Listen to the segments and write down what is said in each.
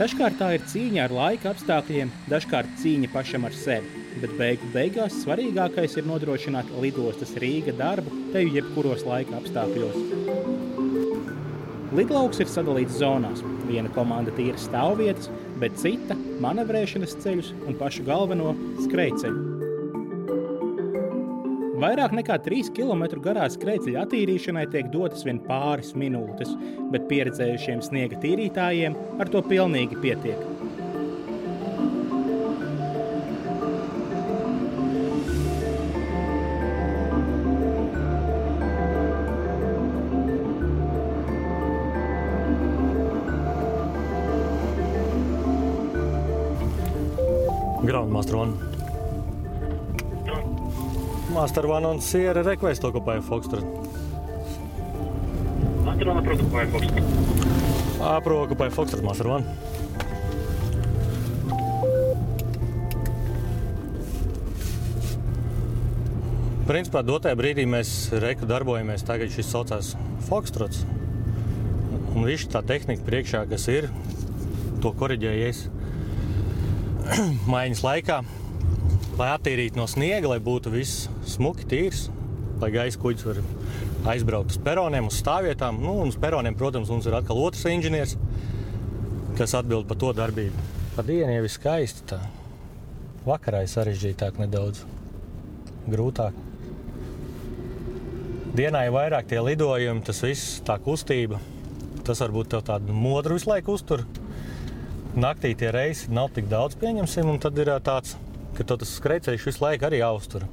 Dažkārt tā ir cīņa ar laika apstākļiem, dažkārt cīņa pašam ar sevi, bet beigās svarīgākais ir nodrošināt lidostas Rīga darbu teju jebkuros laika apstākļos. Lidlauks ir sadalīts zonās. Viena komanda tīra stāvvietas, bet cita manevrēšanas ceļus un pašu galveno skrejceļu. Vairāk nekā 3 km garā skrejceļa attīrīšanai tiek dotas vien pāris minūtes, bet pieredzējušiem sniega tīrītājiem ar to pilnīgi pietiek. Groundmaster One. Master One on Sierra request occupy Foxtrot. Master One approve occupy Foxtrot. Approve occupy Foxtrot, Master One. Principā dotajā brīdī mēs darbojamies, tagad šis saucās Foxtrots. Un visu tā tehnika priekšā, kas ir, to koriģējies maiņas laikā, lai attīrītu no sniega, lai būtu viss smuki, tīrs, lai gaisa kuģis var aizbraukt uz peroniem, uz stāvvietām. Un uz peroniem, protams, mums ir atkal otrs inženieris, kas atbild par to darbību. Pa dienu jau ir skaisti tā. Vakarā ir sarežģītāk nedaudz, grūtāk. Dienā ir vairāk tie lidojumi, tas viss, tā kustība. Tas varbūt tev tādu modru visu laiku uztur. Naktī tie reisi nav tik daudz, pieņemsim, un tad ir tāds, ka tas skrejceļš visu laiku arī jāuztur.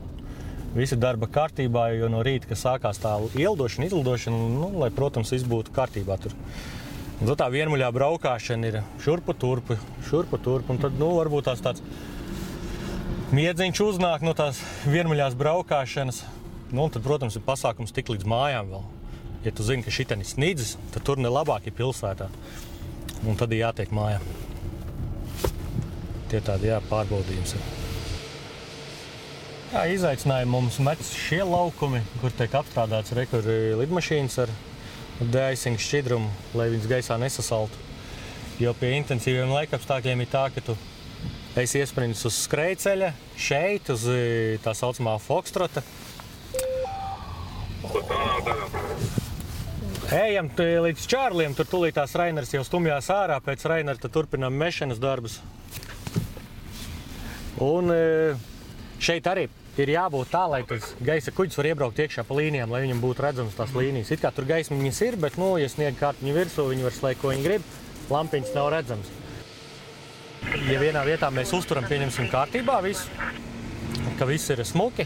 Visi darba kārtībā, jo no rīta, kad sākās tā ieldošana, izlidošana, lai, protams, viss būtu kārtībā tur. Un tad tā vienmuļā braukāšana ir šurpu turpu, un tad, varbūt tāds miedziņš uznāk no tās vienmuļās braukāšanas. Un tad, protams, ir pasākums tik līdz mājām vēl. Ja tu zini, ka šitien ir snidzis, tad tur nelabāk ir pilsētā. Un tad ir jātiek mājā. Tie tādi, pārbaudījums ir. Izaicinājumi mums met šie laukumi, kur tiek apstrādāts lidmašīnas ar de-icing šķidrumu, lai viņas gaisā nesasaltu. Jo pie intensīviem laikapstākļiem ir tā, ka tu esi iesprindis uz skrejceļa, šeit, uz tā saucamā Foxtrota. Ejam līdz Čārliem, tur tūlītās Rainers jau stumjās ārā, pēc Rainera tad turpinām mešanas darbus. Un šeit arī ir jābūt tā, lai tas gaisa kuģis var iebraukt iekšā pa līnijām, lai viņam būtu redzams tās līnijas. It kā tur gaismiņas ir, bet, ja sniega kārtiņa virsū, viņi var slēgt, ko viņi grib, lampiņas nav redzams. Ja vienā vietā mēs uzturam, pieņemsim kārtībā visu, ka viss ir smuki,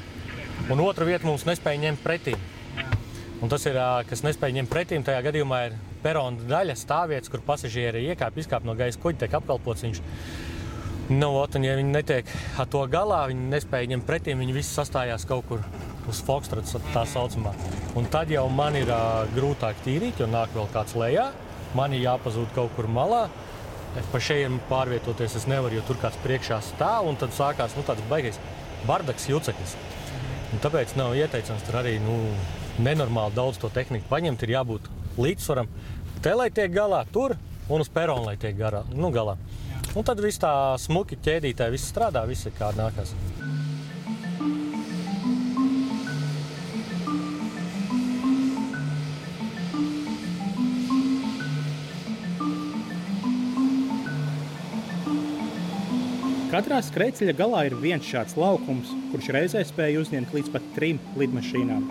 un otra vieta mums nespēja ņemt pretīm. Un tas ir, kas nespēja ņemt pretīm, tajā gadījumā ir perona daļa, stāvvietas, kur pasažieri izkāp no gaisa kuģa, tiek apkalpots viņš. Un ja viņi netiek ar to galā, viņi nespēja ņemt pretīm, viņi visi sastājās kaut kur uz Foxtrots, tā saucamā. Un tad jau man ir grūtāk tīrīt, jo nāk vēl kāds lejā, man ir jāpazūd kaut kur malā. Pa šeit pārvietoties es nevaru, jo tur kāds priekšā stāv, un tad sākās tāds baigais bardaks juceklis. Un tāpēc nav ieteicams tur arī nenormāli daudz to tehniku paņemt, ir jābūt līdzsvaram. Te, lai tiek galā tur, un uz peronu, lai tiek galā. Un tad viss tā smuki ķēdītāji, viss strādā, viss ir kā nākās. Katrā skrejceļa galā ir viens šāds laukums, kurš reizē spēja uzņemt līdz pat 3 lidmašīnām.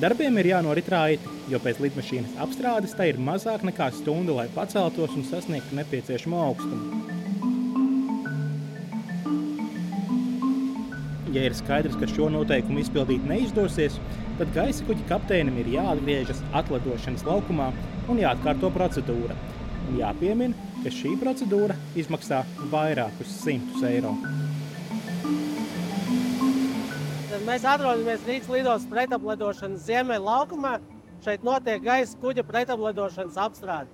Darbiem ir jānorit raiti, jo pēc lidmašīnas apstrādes tai ir mazāk nekā stunda, lai paceltos un sasniegtu nepieciešamo augstumu. Ja ir skaidrs, ka šo noteikumu izpildīt neizdosies, tad gaisa kuģa kapteinim ir jāatgriežas atlidošanas laukumā un jāatkārto procedūra. Un jāpiemina, ka šī procedūra izmaksā vairākus 100 eiro. Mēs atrodamies Rīgas lidostas pretaplidošanas ziemeļu laukumā. Šeit notiek gaisa kuģa pretaplidošanas apstrāde.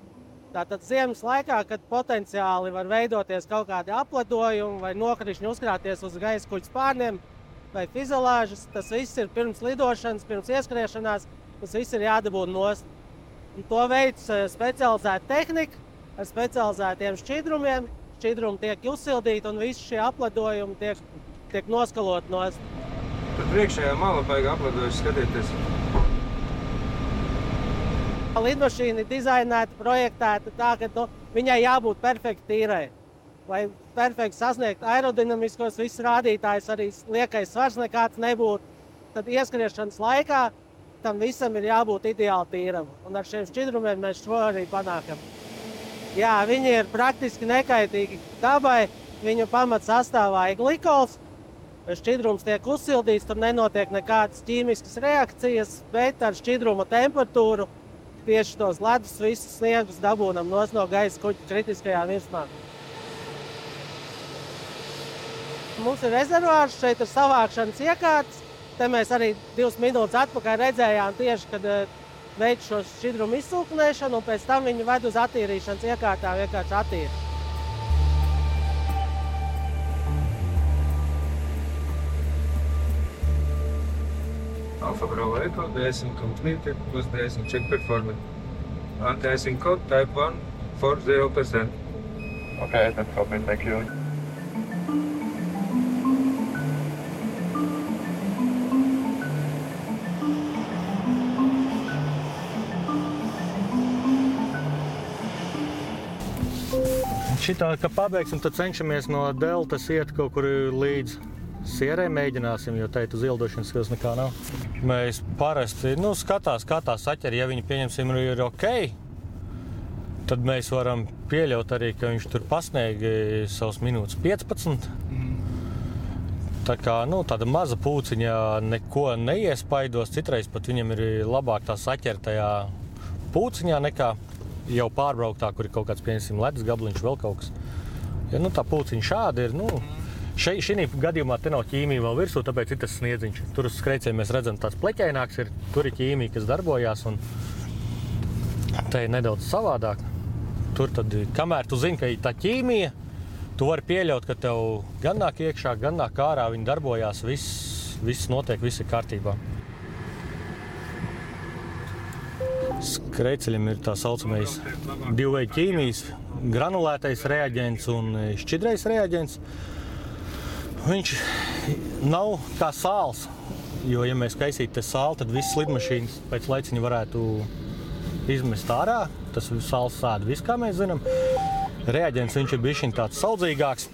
Tātad ziemas laikā, kad potenciāli var veidoties kaut kādi apledojumi vai nokrišņi uzkrāties uz gaisa kuģa spārniem, vai fizolāžas. Tas viss ir pirms lidošanas, pirms ieskriešanās. Tas viss ir jādabū nost. Un to veids specializēta tehnika ar specializētiem šķidrumiem. Šķidrumi tiek uzsildīti un visi šie apledojumi tiek noskalot nost. Tad priekšējā mala baigi apledojuši skatieties. Lidmašīna ir dizainēta, projektēta tā, ka viņai jābūt perfekti tīrai. Lai perfekti sasniegtu aerodinamiskos visus rādītājus, arī liekais svars nekāds nebūtu. Tad ieskriešanas laikā tam visam ir jābūt ideāli tīram. Un ar šiem šķidrumiem mēs šo arī panākam. Jā, viņi ir praktiski nekaitīgi dabai. Viņu pamats sastāvā ir glikols. Šķidrums tiek uzsildīts, tur nenotiek nekādas ķīmiskas reakcijas, bet ar šķidruma temperatūru tieši tos ledus visus sniegus dabūnam no gaisa kuģa kritiskajā virsmā. Mums ir rezervārs, šeit ir savākšanas iekārtas. Te mēs arī 2 minūtes atpakaļ redzējām tieši, kad veic šo šķidrumu izsūknēšanu, un pēc tam viņu ved uz attīrīšanas iekārtām vienkārši attīra. Alfa Bravo Echo, de-icing completed, plus de-icing check performance. Anti-icing code type 1 for 0%. Okay, that's copy. Thank you. Šitā, ka pabeigsim, tad cenšamies no deltas iet kaut kur līdz Sierē, mēģināsim, jo teikt uz ildošanas skills nekā nav. Mēs parasti skatās, kā tā saķer, ja viņi pieņemsim ir ok, tad mēs varam pieļaut arī, ka viņš tur pasniega savus minūtes 15. Tā kā tāda maza pūciņa neko neiespaidos, citreiz pat viņam ir labāk tā saķer tajā pūciņā nekā jau pārbrauktā, kur ir kaut kāds, pieņemsim, ledus gabliņš, vēl kaut kas. Ja tā pūciņa šāda ir, šī gadījumā te nav ķīmija vēl virsū, tāpēc ir tas sniedziņš. Tur uz skreicēm mēs redzam tāds pleķaināks, tur ir ķīmija, kas darbojās, un te ir nedaudz savādāk. Tur tad, kamēr tu zini, ka ir tā ķīmija, tu vari pieļaut, ka tev gan nāk iekšā, gan nāk ārā, viņi darbojās, viss notiek, viss ir kārtībā. Skreiceļiem ir tā saucamais divveidu ķīmijas, granulētais reaģents un šķidrais reaģents. Viņš nav kā sāls, jo, ja mēs kaisītu te sāli, tad visas lidmašīnas pēc laiciņa varētu izmest ārā. Tas sāls sēda viss, kā mēs zinām. Reaģents viņš ir bišķiņ tāds saudzīgāks,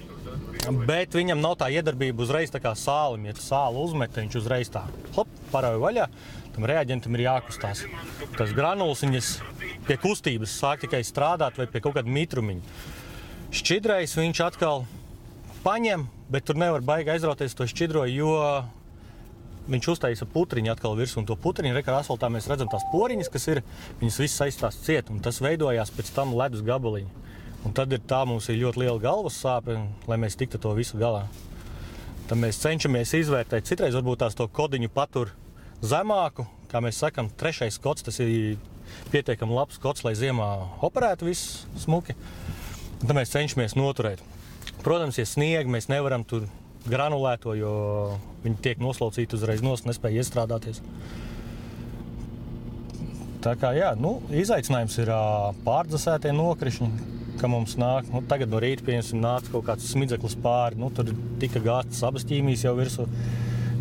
bet viņam nav tā iedarbība uzreiz tā kā sālim. Ja tu sāli uzmet, viņš uzreiz tā parauj vaļā. Tam reaģentam ir jākustās. Tas granuls viņas pie kustības sāk tikai strādāt vai pie kaut kāda mitrumiņa. Šķidrais viņš atkal paņem, bet tur nevar baigi aizrauties to šķidro, jo viņš uztaisa putriņu atkal virsū. Un to putriņu, ar asfaltā mēs redzam tās poriņas, kas ir, viņas visas aizstās ciet, un tas veidojās pēc tam ledus gabaliņi. Un tad mums ir ļoti liela galvas sāpe, lai mēs tiktu to visu galā. Tad mēs cenšamies izvērtēt. Citreiz varbūt tās to kodiņu patur zemāku, kā mēs sakam, 3. kods, tas ir pietiekami labs kods, lai ziemā operētu viss smuki. Tad mēs cenšamies noturēt. Protams, ja snieg, mēs nevaram tur granulēto, jo viņi tiek noslaucīti uzreiz nespēja iestrādāties. Tā kā, jā, izaicinājums ir pārdzasētie nokrišņi, ka mums nāk. Tagad no rīta, pieņemsim, nāca kaut kāds smidzeklis pāri, tur tika gāstas abas ķīmijas jau virsū.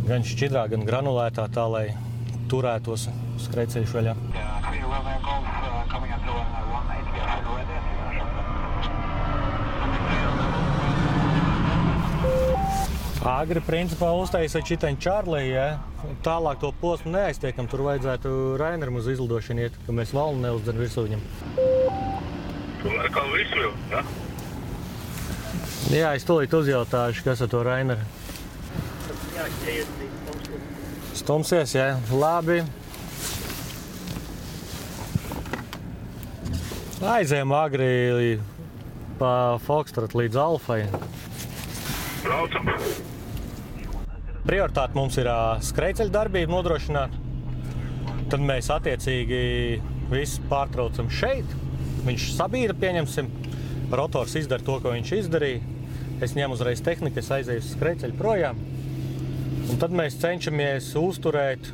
Gan šķidrā, gan granulētā, tā, lai turētos skreicēļu vaļā. Agri principā uztaisa čitaņu Čārlī, ja? Tālāk to posmu neaiztiekam, tur vajadzētu Raineram uz izlidošanu iet, ka mēs valnu neuzdzen virsū viņam. Ar kā visu jau, ja? Jā, es tūlīt uzjautāšu, kas ar to Raineru. Stumsies, jā, labi. Aizējam agri pa Foxtrot līdz Alfai. Braucam. Prioritāte mums ir skreiceļu darbību nodrošināt. Tad mēs attiecīgi visu pārtraucam šeit. Viņš sabīra, pieņemsim. Rotors izdara to, ko viņš izdarīja. Es ņemu uzreiz tehniku, es aizēju uz skreiceļu projām. Un tad mēs cenšamies uzturēt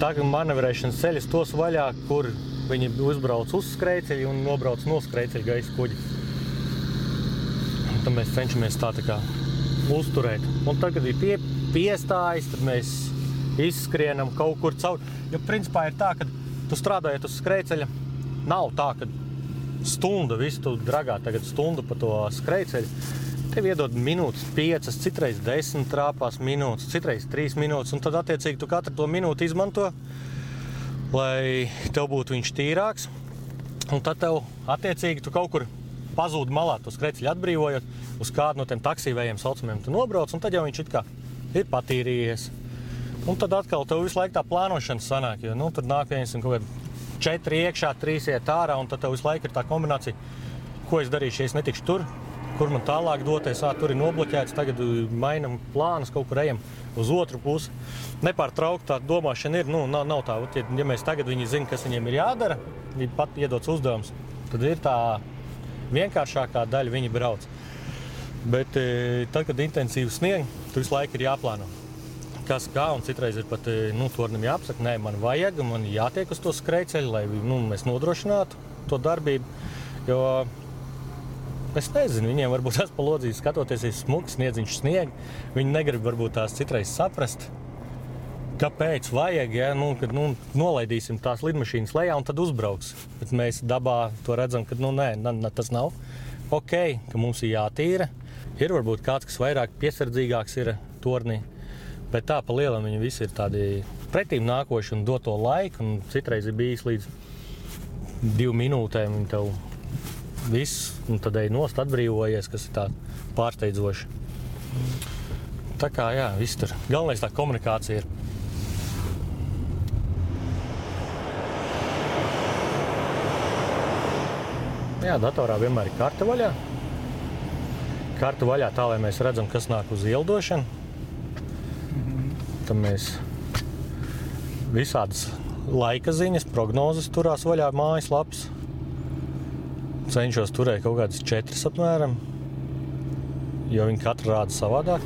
tagad manevrēšanas ceļus tos vaļā, kur viņi uzbrauc uz skrejceļa un nobrauc no skrejceļa gaisa kuģi. Un tad mēs cenšamies tā kā uzturēt. Un tad, kad ir piestājas, tad mēs izskrienam kaut kur caur. Jo principā ir tā, ka tu strādājot uz skrejceļa, nav tā, ka stunda visu tu dragā tagad stundu pa to skrejceļu. Tev iedod minūtes 5, citreiz 10 trāpās minūtes, citreiz 3 minūtes, un tad attiecīgi tu katru to minūti izmanto, lai tev būtu viņš tīrāks. Un tad tev attiecīgi tu kaut kur pazūd malā to skrejceļu atbrīvojot, uz kādu no tiem taksīvējiem saucamiem tu nobrauc, un tad jau viņš it kā ir patīrījies. Un tad atkal tev visu laiku tā plānošana sanāk, jo tur nāk viens un kaut kādi 4 iekšā, 3 iet ārā, un tad tev visu laiku ir tā kombinācija, ko es darīšu, ja es netikšu tur, kur man tālāk doties, tur ir nobloķēts, tagad mainam plānus, kaut kur ejam uz otru pusi. Nepārtraukt tā domāšana ir, nav tā, ja mēs tagad viņi zina, kas viņiem ir jādara, viņi pat iedots uzdevums, tad ir tā vienkāršākā daļa, viņi brauc. Bet tad, kad intensīvi snieg, tu visu laiku ir jāplāno. Kas kā, un citreiz ir pat tornim jāapsaka, nē, man vajag, man jātiek uz to skrejceļu, lai mēs nodrošinātu to darbību, jo es nezinu, viņiem varbūt tās pa lodzīs skatoties ir smuks, sniedziņš snieg, viņi negrib varbūt tās citreiz saprast, kāpēc vajag, ja, kad nolaidīsim tās lidmašīnas lejā un tad uzbrauks. Bet mēs dabā to redzam, ka nē, tas nav ok, ka mums ir jātīra. Ir varbūt kāds, kas vairāk piesardzīgāks ir tornī, bet tā pa lielam viņi visi ir tādi pretīm nākoši un dot to laiku, un citreiz ir bijis līdz 2 minūtēm viņi tev viss, un tad ej nost atbrīvojies, kas ir tā pārsteidzoši. Tā kā, jā, viss tur. Galvenais tā komunikācija ir. Jā, datorā vienmēr ir karte vaļā. Karte vaļā tā, lai mēs redzam, kas nāk uz ielidošanu. Tad mēs visādas laika ziņas, prognozes turās vaļā mājaslapas. Cenšos turēt kaut kādas 4 apmēram, jo viņi katru rāda savādāk.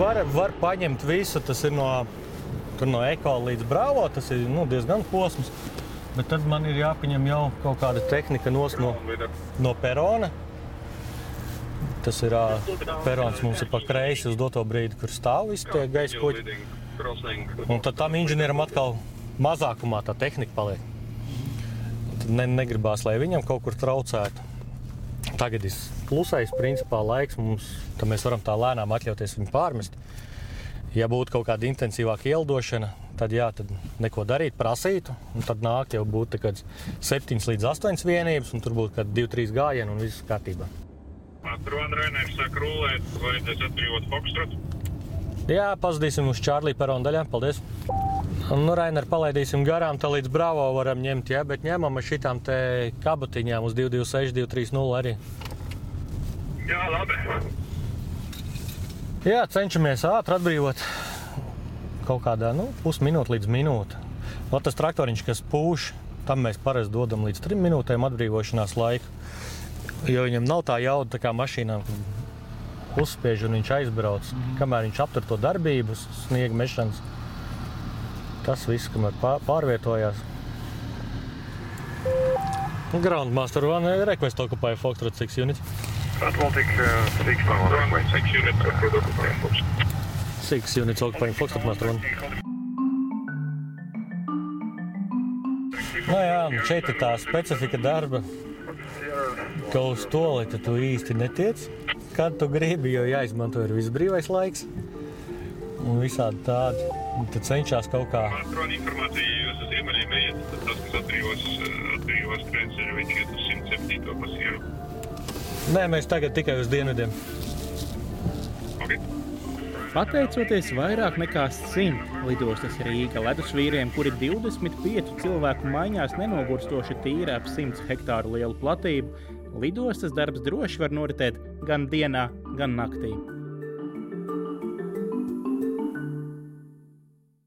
Var paņemt visu, tas ir no Eko līdz Bravo, tas ir diezgan posms, bet tad man ir jāpaņem jau kaut kāda tehnika no perona. Tas ir perons mums ir pa kreisi uz doto brīdi, kur stāv visi tie gaisa kuģi. Un tad tam inženieram atkal mazākumā tā tehnika paliek. Tad negribās, lai viņam kaut kur traucētu. Tagad ir klusais principā laiks mums, tad mēs varam tā lēnām atļauties viņu pārmest. Ja būtu kaut kāda intensīvāka ielidošana, tad jā, tad neko darīt, prasītu, un tad nāk jau būtu 7 līdz 8 vienības, un tur būtu 2-3 gājieni un viss kārtībā. Tur Rainers saka rulēt, vajadzēs atbrīvot Foxtrot. Jā, pazudīsim uz Čārlī perona daļā, paldies. Rainer palaidīsim garām, tā līdz Bravo varam ņemt, jā, bet ņemam ar šitām te kabatiņām uz 226, 230 arī. Jā, labi. Jā, cenšamies ātri atbrīvot kaut kādā, pusminūte līdz minūte. Tas traktoriņš, kas pūš, tam mēs parasti dodam līdz 3 minūtēm atbrīvošanās laiku. Jo viņam nav tā jauda tā kā mašīnām, kad uzspiež un viņš aizbrauc. Kamēr viņš aptur to darbību, sniega mešanas, tas viss, kamēr pārvietojās. Groundmaster one, request occupy Foxtrot 6 unit. Atlantic 6 units occupy Foxtrot. 6 units occupying Foxtrot, master one. Jā, šeit ir tā specifika darba. Ka uz toleti tu īsti netiec, kad tu gribi, jo jāizmanto ir viss brīvais laiks un visādi tādi. Un tad cenšās kaut kā. Atrod informāciju, jūs uz ziemeļiem iet, tad tas, kas atbrīvos krēceļu, viņš iet uz 107. pasieru. Nē, mēs tagad tikai uz dienvidiem. Okay. Pateicoties vairāk nekā 100 lidostas Rīga ledusvīriem, kuri 25 cilvēku maiņās nenogurstoši tīra ap 100 hektāru lielu platību, lidostas darbs droši var noritēt gan dienā, gan naktī.